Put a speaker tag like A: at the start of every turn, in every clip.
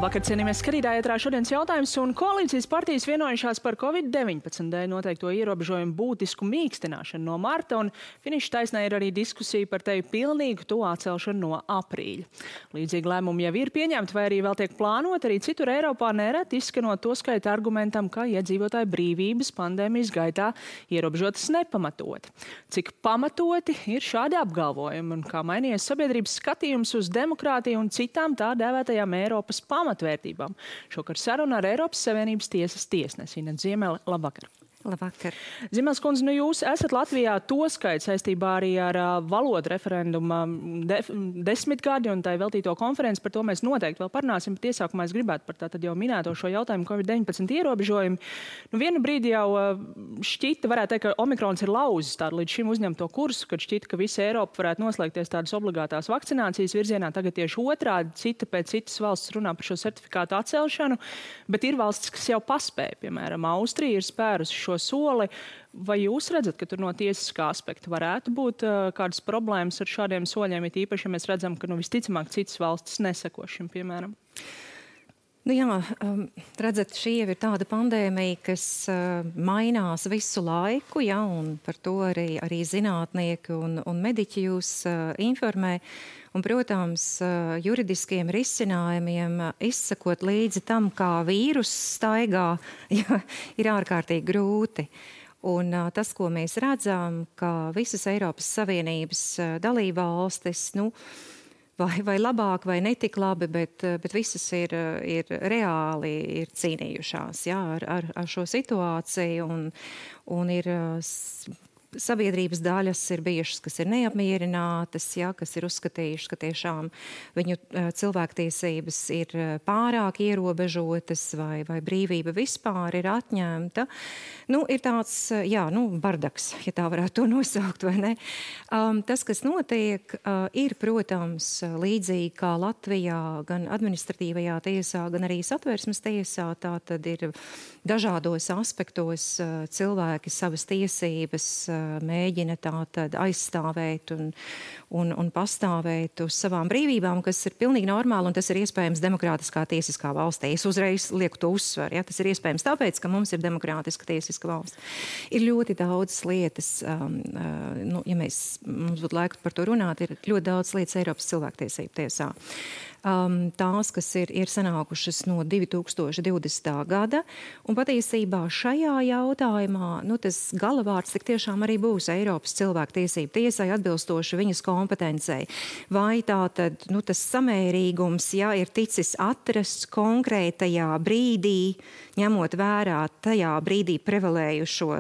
A: Labvakar, cienījamies skatītāji, ētrā šodienas jautājums, un koalīcijas partijas vienojušās par Covid-19 dēļ noteikto ierobežojumu būtisku mīkstināšanu no marta, un finiša taisnē ir arī diskusija par teju pilnīgu to atcelšanu no aprīļa. Līdzīgi lēmumi jau ir pieņemti, vai arī vēl tiek plānot, arī citur Eiropā nereti izskanot to skaita argumentam, ka iedzīvotāju brīvības pandēmijas gaitā ierobežotas nepamatoti. Cik pamatoti ir šādi apgalvojumi, un kā mainījies sabiedrības skatījums uz demokrātiju un citām tā dēvētajām Eiropas pamatvērtībām. Šokar saruna ar Eiropas Savienības tiesas tiesnesi Inetu Ziemeli. Labvakar!
B: Labvakar.
A: Ziemeles kundze, jūs esat Latvijā to skait saistībā arī ar valodu referenduma desmitgadi un tai veltīto konferenci. Par to mēs noteikti vēl parunāsim, bet iesākumā es gribētu par tātad jau minēto šo jautājumu Covid-19 ierobežojumu. Vienu brīdi jau šķita, varētu teikt, ka Omikrons ir lauzis tādu līdz šim uzņemto kursu, kad šķita, ka visa Eiropa varētu noslēgties tādas obligātās vakcinācijas virzienā. Tagad tieši otrādi, cita pēc citas valsts runā par šo certifikātu atcelšanu, bet ir valstis, kas jau paspēja, piemēram, Austrija ir spērusi šo soli. Vai jūs redzat, ka tur no tiesiskā aspekta varētu būt kādas problēmas ar šādiem soļiem, it īpaši, ja mēs redzam, ka visticamāk citas valstis neseko šim, piemēram?
B: Redzat, šī jau ir tāda pandēmija, kas mainās visu laiku, un par to arī zinātnieki un mediķi jūs informē. Un, protams, juridiskiem risinājumiem izsakot līdzi tam, kā vīrus staigā, ir ārkārtīgi grūti. Un tas, ko mēs redzam, ka visas Eiropas Savienības dalībvalstis, vai labāk, vai netik labi, bet visas ir reāli ir cīnījušās ar šo situāciju un ir sabiedrības daļas ir bijušas, kas ir neapmierinātas, kas ir uzskatījušas, ka tiešām viņu cilvēktiesības ir pārāk ierobežotas vai brīvība vispār ir atņemta. Ir tāds, bardaks, ja tā varētu to nosaukt, vai ne? Tas, kas notiek, ir, protams, līdzīgi kā Latvijā, gan administratīvajā tiesā, gan arī Satversmes tiesā, tā tad ir dažādos aspektos cilvēki savas tiesības mēģina tātad aizstāvēt un pastāvēt uz savām brīvībām, kas ir pilnīgi normāli, un tas ir iespējams demokrātiskā tiesiskā valstī. Es uzreiz lieku to uzsvaru. Tas ir iespējams tāpēc, ka mums ir demokrātiska tiesiska valsts. Ir ļoti daudz lietas, ja mums būtu laika par to runāt, ir ļoti daudz lietas Eiropas cilvēktiesību tiesā. Tās, kas ir sanākušas no 2020. gada, un patiesībā šajā jautājumā, tas galavārds tik tiešām arī būs Eiropas cilvēktiesību tiesai atbilstoši viņas kompetencei. Vai tā tad, tas samērīgums, ir ticis atrasts konkrētajā brīdī, ņemot vērā tajā brīdī prevalējušo,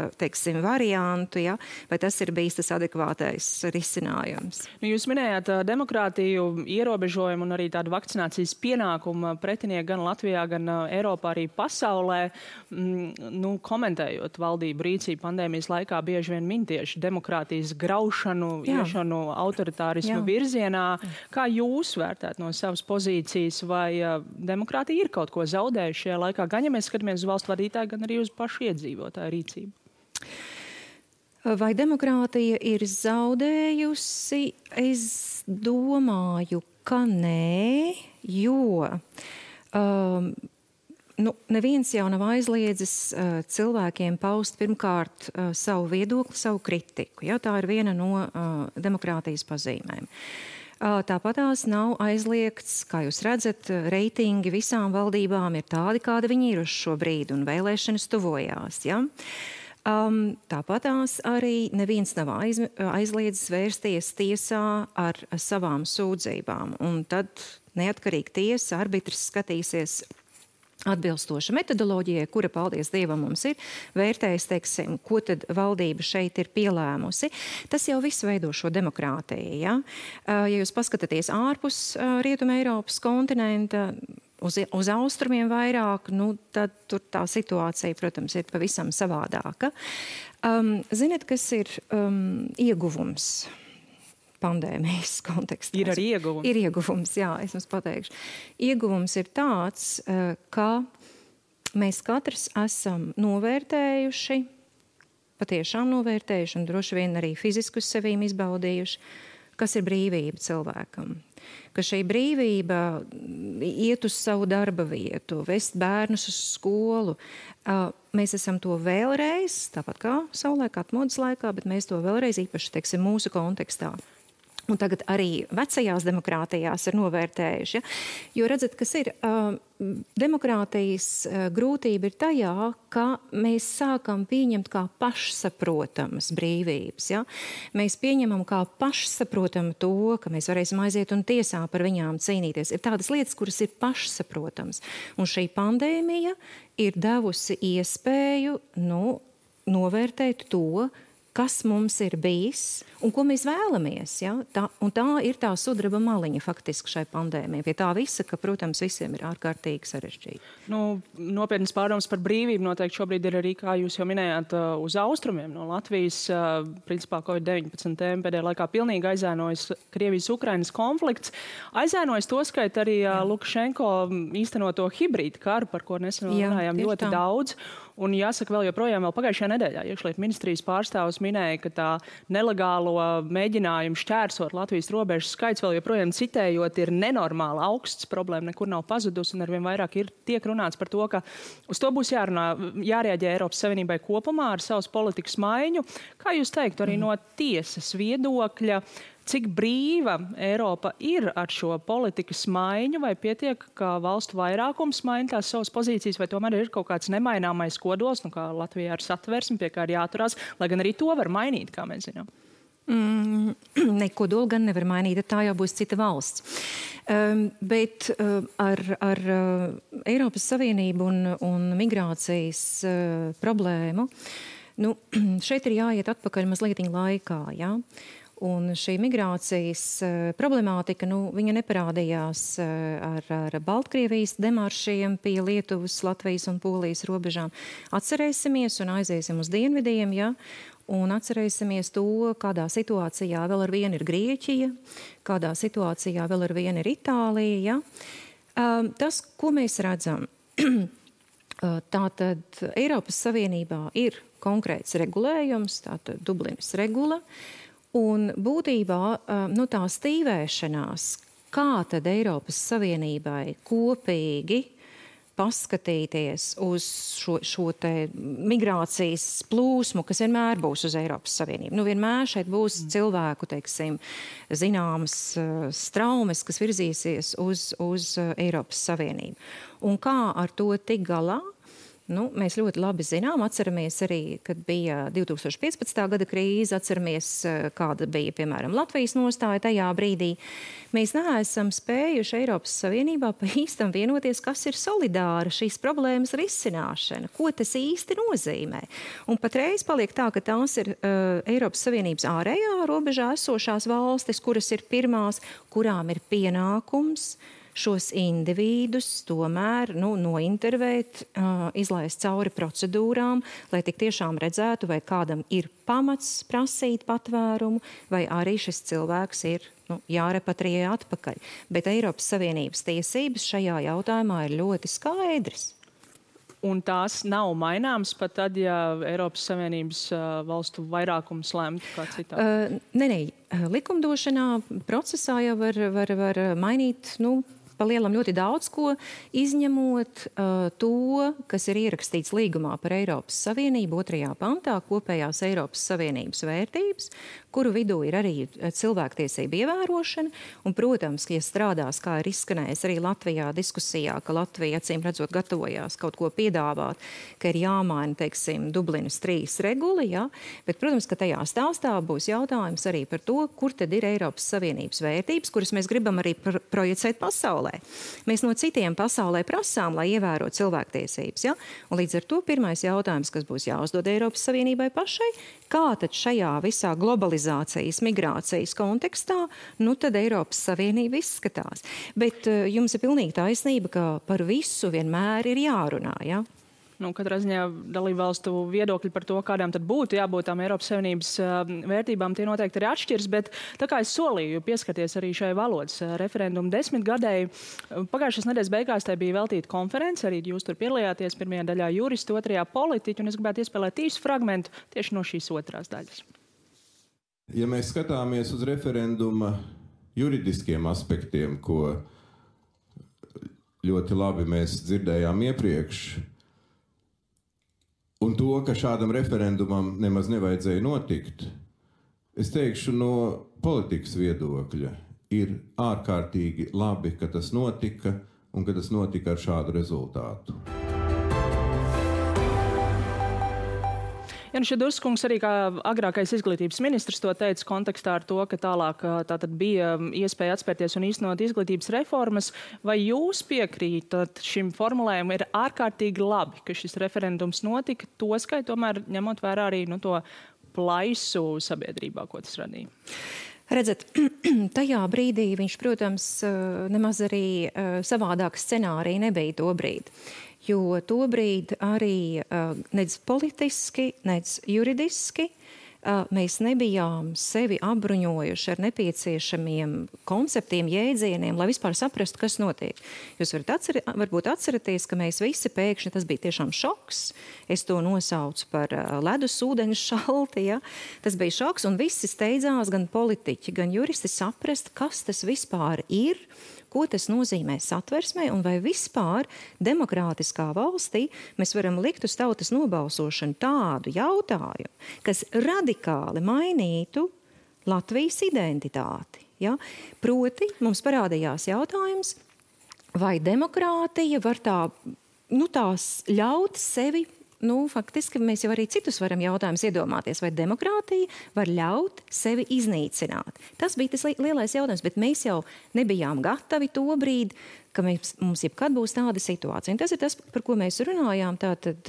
B: variantu, vai tas ir bijis tas adekvātais risinājums?
A: Jūs minējāt demokrātiju, ierobežojumu un arī tādu vakcinācijas pienākumu pretinieki gan Latvijā, gan Eiropā, arī pasaulē. Komentējot valdību rīcību pandēmijas laikā, bieži vien min tieši demokrātijas graušanu, iešanu autoritārismu virzienā. Kā jūs vērtēt no savas pozīcijas, vai demokrātija ir kaut ko zaudējuši šajā laikā, gan ja mēs skatāmies uz valstu vadītāju, gan arī uz pašu iedzīvotāju rīcību?
B: Vai demokrātija ir zaudējusi? Es domāju, ka nē, jo neviens jau nav aizliedzis cilvēkiem paust pirmkārt savu viedokli, savu kritiku. Tā ir viena no demokrātijas pazīmēm. Tāpat tās nav aizliegts, kā jūs redzat, reitingi visām valdībām ir tādi, kādi viņi ir uz šo brīdi, un vēlēšanas tuvojās. Tāpat tās arī neviens nav aizliedzis vērsties tiesā ar savām sūdzībām. Un tad neatkarīgi tiesa, arbitrs skatīsies atbilstoša metodoloģijai, kura, paldies Dievam, mums ir, vērtējas, ko tad valdība šeit ir pielēmusi. Tas jau viss veido šo demokrātiju. Ja jūs paskatāties ārpus Rietuma Eiropas kontinenta, uz austrumiem vairāk, tad tur tā situācija, protams, ir pavisam savādāka. Ziniet, kas ir ieguvums pandēmijas kontekstā?
A: Ir arī ieguvums.
B: Ir ieguvums, es jums pateikšu. Ieguvums ir tāds, ka mēs katrs esam novērtējuši, patiešām novērtējuši un droši vien arī fiziski uz sevīm izbaudījuši, kas ir brīvība cilvēkam. Ka šī brīvība iet uz savu darba vietu, vest bērnus uz skolu. Mēs esam to vēlreiz, tāpat kā savulaik atmodas laikā, bet mēs to vēlreiz īpaši, teiksim, mūsu kontekstā. Un tagad arī vecajās demokrātijās ir novērtējuši. Ja? Jo redzat, kas ir demokrātijas grūtība ir tajā, ka mēs sākam pieņemt kā pašsaprotamas brīvības. Ja? Mēs pieņemam kā pašsaprotamu to, ka mēs varēsim aiziet un tiesā par viņām cīnīties. Ir tādas lietas, kuras ir pašsaprotamas. Un šī pandēmija ir devusi iespēju novērtēt to, kas mums ir bijis un ko mēs vēlamies. Ja? Tā ir tā sudraba maliņa faktiski šai pandēmijai. Pie tā visa, ka, protams, visiem ir ārkārtīgi sarežģīti.
A: Nopietnas pārdomas par brīvību noteikti šobrīd ir arī, kā jūs jau minējāt, uz austrumiem no Latvijas. Principā Covid-19 tēma pēdējā laikā pilnīgi aizēnojas Krievijas-Ukrainas konflikts. Aizēnojas to skait arī Lukašenko īstenoto hibrīdu karu, par ko nesen runājām ļoti daudz. Un jāsaka, vēl joprojām pagājušajā nedēļā iekšlietu ministrijas pārstāvs minēja, ka tā nelegālo mēģinājumu šķērsot Latvijas robežas skaits vēl joprojām citējot ir nenormāli augsts, problēma nekur nav pazudusi un arvien vairāk tiek runāts par to, ka uz to būs jārēģē Eiropas Savienībai kopumā ar savas politikas maiņu. Kā jūs teiktu arī no tiesas viedokļa, cik brīva Eiropa ir ar šo politikas maiņu, vai pietiek, ka valstu vairākums maina tās savas pozīcijas, vai tomēr ir kaut kāds nemaināmais kodols, kā Latvijā ar satversmi, pie kā ir jāturās, lai gan arī to var mainīt, kā mēs zinām?
B: Kodolu gan nevar mainīt, tā jau būs cita valsts. Bet ar Eiropas Savienību un migrācijas problēmu, šeit ir jāiet atpakaļ mazlietiņ laikā, jā? Un šī migrācijas problemātika, viņa neparādījās ar Baltkrievijas demaršiem pie Lietuvas, Latvijas un Polijas robežām. Atcerēsimies un aiziesim uz dienvidiem, ja? Un atcerēsimies to, kādā situācijā vēl ar vienu ir Grieķija, kādā situācijā vēl ar vienu ir Itālija. Ja? Tas, ko mēs redzam, tātad Eiropas Savienībā ir konkrēts regulējums, tātad Dublinas regula, un būtībā tā stīvēšanās, kā tad Eiropas Savienībai kopīgi paskatīties uz šo te migrācijas plūsmu, kas vienmēr būs uz Eiropas Savienību. Vienmēr šeit būs cilvēku, teiksim, zināmas straumes, kas virzīsies uz Eiropas Savienību. Un kā ar to tik galā? Mēs ļoti labi zinām, atceramies arī, kad bija 2015. gada krīze, atceramies, kāda bija, piemēram, Latvijas nostāja tajā brīdī. Mēs neesam spējuši Eiropas Savienībā pa īstam vienoties, kas ir solidāra šīs problēmas risināšana, ko tas īsti nozīmē. Un patreiz paliek tā, ka tās ir Eiropas Savienības ārējā robežā esošās valstis, kuras ir pirmās, kurām ir pienākums šos individus tomēr nointervēt, izlaist cauri procedūrām, lai tik tiešām redzētu, vai kādam ir pamats prasīt patvērumu, vai arī šis cilvēks ir jārepatriē atpakaļ. Bet Eiropas Savienības tiesības šajā jautājumā ir ļoti skaidras.
A: Un tās nav maināmas pat tad, ja Eiropas Savienības valstu vairākums lemtu kā citādi?
B: Nē, likumdošanā procesā jau var mainīt, pa lielam ļoti daudz ko, izņemot to, kas ir ierakstīts līgumā par Eiropas Savienību 2. pantā, kopējās Eiropas Savienības vērtības, kuru vidū ir arī cilvēktiesība ievērošana. Un, protams, ja strādās, kā ir izskanējis arī Latvijā diskusijā, ka Latvija, acīm redzot, gatavojās kaut ko piedāvāt, ka ir jāmaina, teiksim, Dublinas 3 regula, ja? Bet, protams, ka tajā stāstā būs jautājums arī par to, kur tad ir Eiropas Savienības vērtības, kuras mēs gribam arī projicēt pasaulē. Mēs no citiem pasaulē prasām, lai ievērotu cilvēktiesības. Ja? Un līdz ar to pirmais jautājums, kas būs jāuzdod Eiropas Savienībai pašai, kā tad šajā visā globalizācijas, migrācijas kontekstā, tad Eiropas Savienība izskatās. Bet jums ir pilnīgi taisnība, ka par visu vienmēr ir jārunā, ja?
A: Katrā ziņā dalībvalstu viedokļi par to, kādām tad būtu jābūt tām Eiropas Savienības vērtībām, tie noteikti arī atšķirs, bet tā kā es solīju pieskarties arī šai valodas referendumu 10 gadēji, pagājušās nedēļas beigās tai bija veltīta konference, arī jūs tur piedalījāties, pirmajā daļā juristi, otrajā politiķi, un es gribētu iespēlēt īsu fragmentu tieši no šīs otrās daļas.
C: Ja mēs skatāmies uz referenduma juridiskiem aspektiem, ko ļoti labi mēs dzirdējām iepriekš, un to, ka šādam referendumam nemaz nevajadzēja notikt, es teikšu no politikas viedokļa, ir ārkārtīgi labi, ka tas notika un ka tas notika ar šādu rezultātu.
A: Jānis Šedurskungs arī kā agrākais izglītības ministrs to teica kontekstā ar to, ka tālāk tātad bija iespēja atspērties un īstenot izglītības reformas. Vai jūs piekrītat šim formulējumam ir ārkārtīgi labi, ka šis referendums notika, toskai tomēr ņemot vērā arī to plaisu sabiedrībā, ko tas radīja?
B: Redzat, tajā brīdī viņš, protams, nemaz arī savādāk scenārija nebija to brīdi. Jo tobrīd arī nec politiski, nec juridiski mēs nebijām sevi apbruņojuši ar nepieciešamiem konceptiem, jēdzieniem, lai vispār saprastu, kas notiek. Jūs varbūt atceraties, ka mēs visi pēkšņi, tas bija tiešām šoks, es to nosaucu par ledus ūdeņu šalti, ja? Tas bija šoks, un visi steidzās, gan politiķi, gan juristi saprast, kas tas vispār ir, ko tas nozīmē satversmē un vai vispār demokrātiskā valstī mēs varam likt uz tautas nobalsošanu tādu jautājumu, kas radikāli mainītu Latvijas identitāti. Ja? Proti, mums parādījās jautājums, vai demokrātija var tās ļaut sevi, faktiski mēs jau arī citus varam jautājumus iedomāties, vai demokrātija var ļaut sevi iznīcināt. Tas bija tas lielais jautājums, bet mēs jau nebijām gatavi to brīdi, ka mums jebkad būs tāda situācija. Un tas ir tas, par ko mēs runājām tātad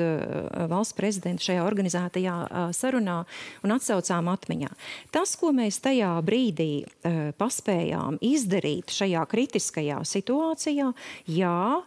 B: valsts prezidenta šajā organizētajā sarunā un atsaucām atmiņā. Tas, ko mēs tajā brīdī paspējām izdarīt šajā kritiskajā situācijā, jā,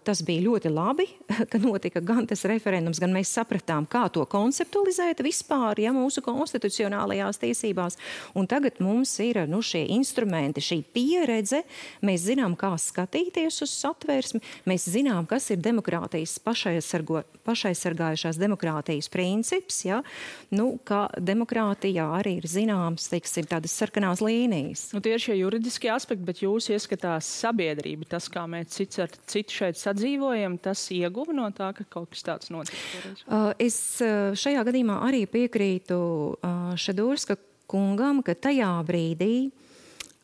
B: tas bija ļoti labi, ka notika gan tas referendums, gan mēs sapratām, kā to konceptualizēt vispār, ja mūsu konstitucionālajās tiesībās. Un tagad mums ir šie instrumenti, šī pieredze, mēs zinām, kā skatīties uz satversmi, mēs zinām, kas ir demokrātijas pašaizsargājušās demokrātijas princips, ja? Kā demokrātijā arī ir zināms, teiksim, tādas sarkanās līnijas.
A: Tie ir šie juridiskie aspekti, bet jūs ieskatās sabiedrība, tas, kā mēs citi šeit sadzīvojam, tas ieguva no tā, ka kaut kas tāds notika?
B: Es šajā gadījumā arī piekrītu Šedurska kungam, ka tajā brīdī,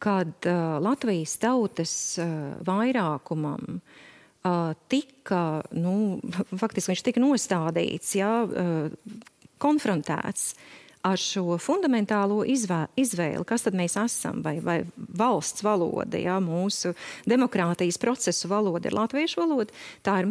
B: kad Latvijas tautas vairākumam tika, faktiski viņš tika nostādīts, konfrontēts ar šo fundamentālo izvēli, kas tad mēs esam, vai valsts valoda, mūsu demokrātijas procesu valoda ir latviešu valoda, tā ir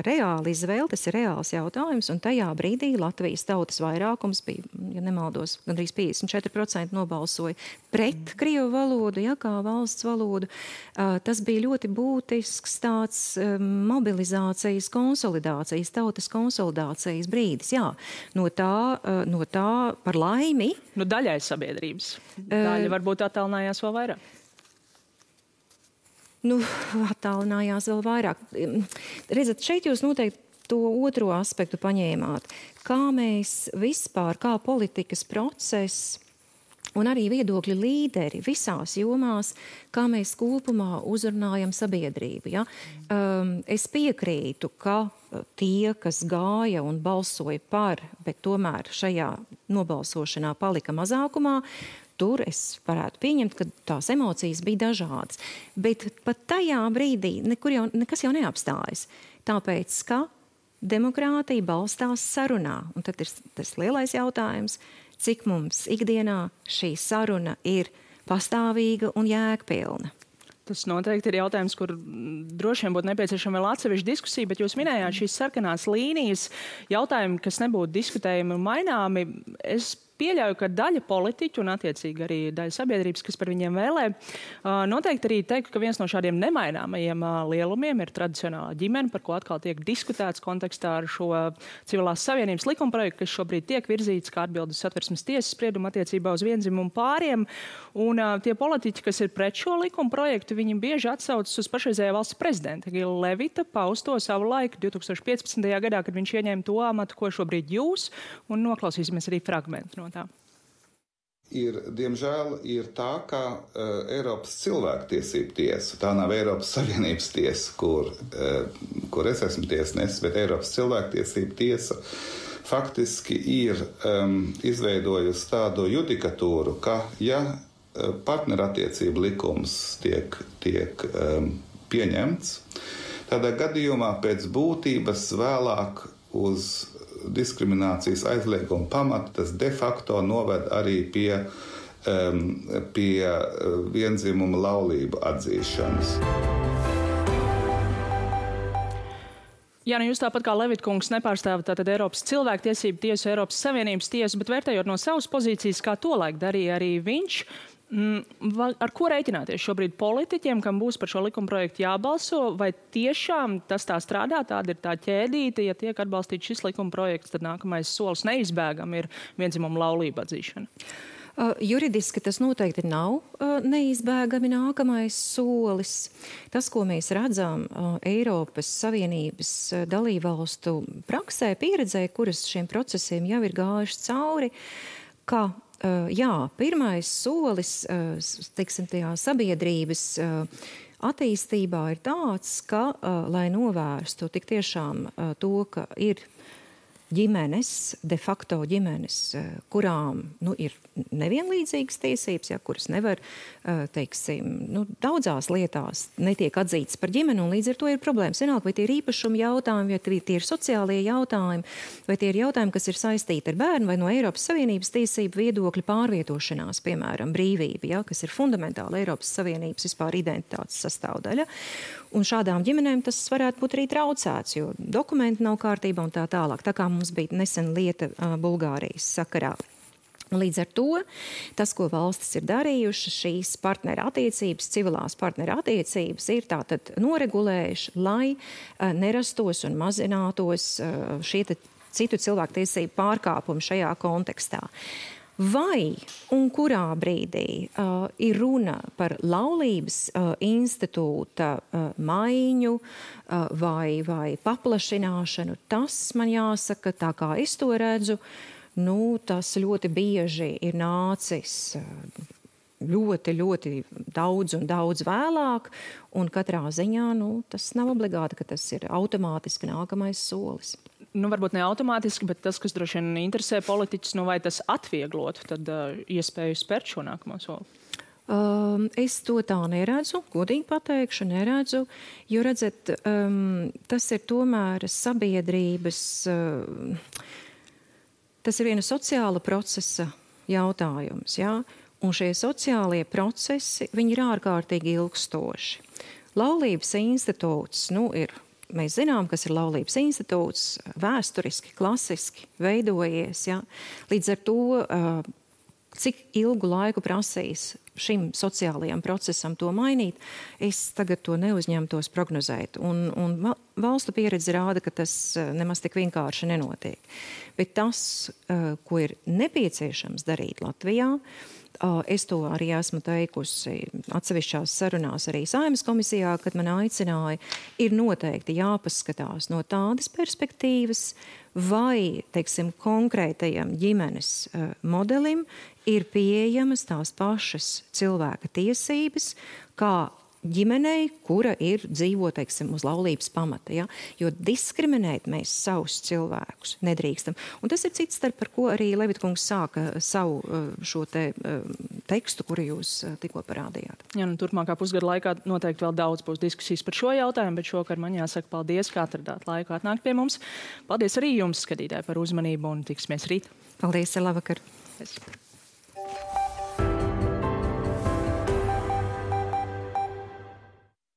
B: reāla izvēle, tas ir reāls jautājums, un tajā brīdī Latvijas tautas vairākums bija, ja nemaldos, gandrīz 54% nobalsoja pret krievu valodu, kā valsts valodu. Tas bija ļoti būtisks tāds mobilizācijas konsolidācijas, tautas konsolidācijas brīdis, no tā par laimi.
A: Daļai sabiedrības. Daļa varbūt attālinājās vēl vairāk.
B: Attālinājās vēl vairāk. Redzat, šeit jūs noteikti to otro aspektu paņēmāt. Kā mēs vispār, kā politikas process un arī viedokļu līderi visās jomās, kā mēs kopumā uzrunājam sabiedrību. Ja? Es piekrītu, ka tie, kas gāja un balsoja par, bet tomēr šajā nobalsošanā palika mazākumā, tur es varētu pieņemt, ka tās emocijas bija dažādas. Bet pat tajā brīdī nekas jau neapstājas. Tāpēc, ka demokrātija balstās sarunā. Un tad ir tas lielais jautājums, cik mums ikdienā šī saruna ir pastāvīga un jēgpilna.
A: Tas noteikti ir jautājums, kur droši vien būtu nepieciešama vēl atsevišķa diskusija, bet jūs minējāt šīs sarkanās līnijas, jautājumi, kas nebūtu diskutējami un maināmi. Es pieļauju, ka daļa politiķu un attiecīgi arī daļa sabiedrības, kas par viņiem vēlē, noteikti arī teikt, ka viens no šādiem nemaināmajiem lielumiem ir tradicionālā ģimene, par ko atkal tiek diskutēts kontekstā ar šo civilās savienības likumprojektu, kas šobrīd tiek virzīts kā atbildi uz Satversmes tiesas spriedumu attiecībā uz viendzimumu pāriem. Un tie politiķi, kas ir pret šo likumprojektu, viņi bieži atsaucas uz pašreizējā valsts prezidenta Egila Levita pausto savu laiku 2015. gadā, kad viņš ieņēma to amatu, ko šobrīd jūs, un noklausīsimies arī fragmentu no tā.
D: diemžēl, ir tā, ka Eiropas cilvēktiesību tiesa, tā nav Eiropas Savienības tiesa, kur es esmu tiesnesis, bet Eiropas cilvēktiesību tiesa faktiski ir izveidojusi tādu judikatūru, ka, ja partnerattiecību likums tiek pieņemts, tādā gadījumā pēc būtības vēlāk uz diskriminācijas aizlieguma pamata tas de facto noved arī pie vienzimuma laulību atzīšanas.
A: Jā, nu jūs tāpat kā Levitkungs nepārstāvat tātad Eiropas cilvēktiesību tiesu, Eiropas Savienības tiesu, bet vērtējot no savas pozīcijas, kā tolaik darīja arī viņš, ar ko rēķināties šobrīd politiķiem, kam būs par šo likumprojektu jābalso, vai tiešām tas tā strādā, tāda ir tā ķēdīte, ja tiek atbalstīts šis likumprojekts, tad nākamais solis neizbēgam ir vienzimuma laulību atzīšana?
B: Juridiski tas noteikti nav neizbēgami nākamais solis. Tas, ko mēs redzam Eiropas Savienības dalībvalstu praksē, pieredzē, kuras šiem procesiem jau ir gājuši cauri, ka pirmais solis, teiksim, tajā sabiedrības attīstībā ir tāds, ka, lai novērstu tik tiešām to, ka ir ģimenes, de facto ģimenes, kurām ir nevienlīdzīgas tiesības, kuras nevar, teiksim, daudzās lietās netiek atzītas par ģimeni, un līdz ar to ir problēmas. Vienalga, vai tie ir īpašuma jautājumi, vai tie ir sociālie jautājumi, vai tie ir jautājumi, kas ir saistīti ar bērnu, vai no Eiropas Savienības tiesību viedokļa pārvietošanās, piemēram, brīvība, kas ir fundamentāla Eiropas Savienības vispār identitātes sastāvdaļa. Un šādām ģimenēm tas varētu būt arī traucēts, jo dokumenti nav kārtībā un tā tālāk. Tā kā mums bija nesen lieta Bulgārijas sakarā. Līdz ar to tas, ko valstis ir darījušas, šīs partnerattiecības, civilās partnerattiecības ir tātad noregulējuši, lai nerastos un mazinātos šie citu cilvēktiesību pārkāpumi šajā kontekstā. Vai un kurā brīdī ir runa par laulības institūta maiņu vai paplašināšanu, tas man jāsaka, tā kā es to redzu, tas ļoti bieži ir nācis ļoti, ļoti daudz un daudz vēlāk, un katrā ziņā tas nav obligāti, ka tas ir automātiski nākamais solis.
A: Varbūt ne automātiski, bet tas, kas droši vien interesē politiķus, vai tas atvieglotu tad iespēju spērt šo nākamo soli?
B: Es to tā neredzu, godīgi pateikšu, neredzu, jo, redzat, tas ir tomēr sabiedrības, tas ir viena sociāla procesa jautājums, un šie sociālie procesi, viņi ir ārkārtīgi ilgstoši. Laulības institūts, ir mēs zinām, kas ir laulības institūts, vēsturiski, klasiski veidojies. Līdz ar to, cik ilgu laiku prasīs šim sociālajam procesam to mainīt, es tagad to neuzņemtos prognozēt. Un valstu pieredze rāda, ka tas nemaz tik vienkārši nenotiek. Bet tas, ko ir nepieciešams darīt Latvijā, es to arī esmu teikusi atsevišķās sarunās arī Saeimas komisijā, kad man aicināja, ir noteikti jāpaskatās no tādas perspektīvas, vai, teiksim, konkrētajam ģimenes modelim ir pieejamas tās pašas cilvēka tiesības, kā ģimenei, kura dzīvo, teiksim, uz laulības pamata. Jo diskriminēt mēs savus cilvēkus nedrīkstam. Un tas ir cits starp, par ko arī Levitkungs sāka savu šo tekstu, kuru jūs tikko parādījāt.
A: Turpmākā pusgada laikā noteikti vēl daudz būs diskusijas par šo jautājumu, bet šokar man jāsaka paldies, ka atradāt laiku atnākt pie mums. Paldies arī jums, skatītāji, par uzmanību un tiksimies rīt.
B: Paldies, labvakar.
A: Paldies.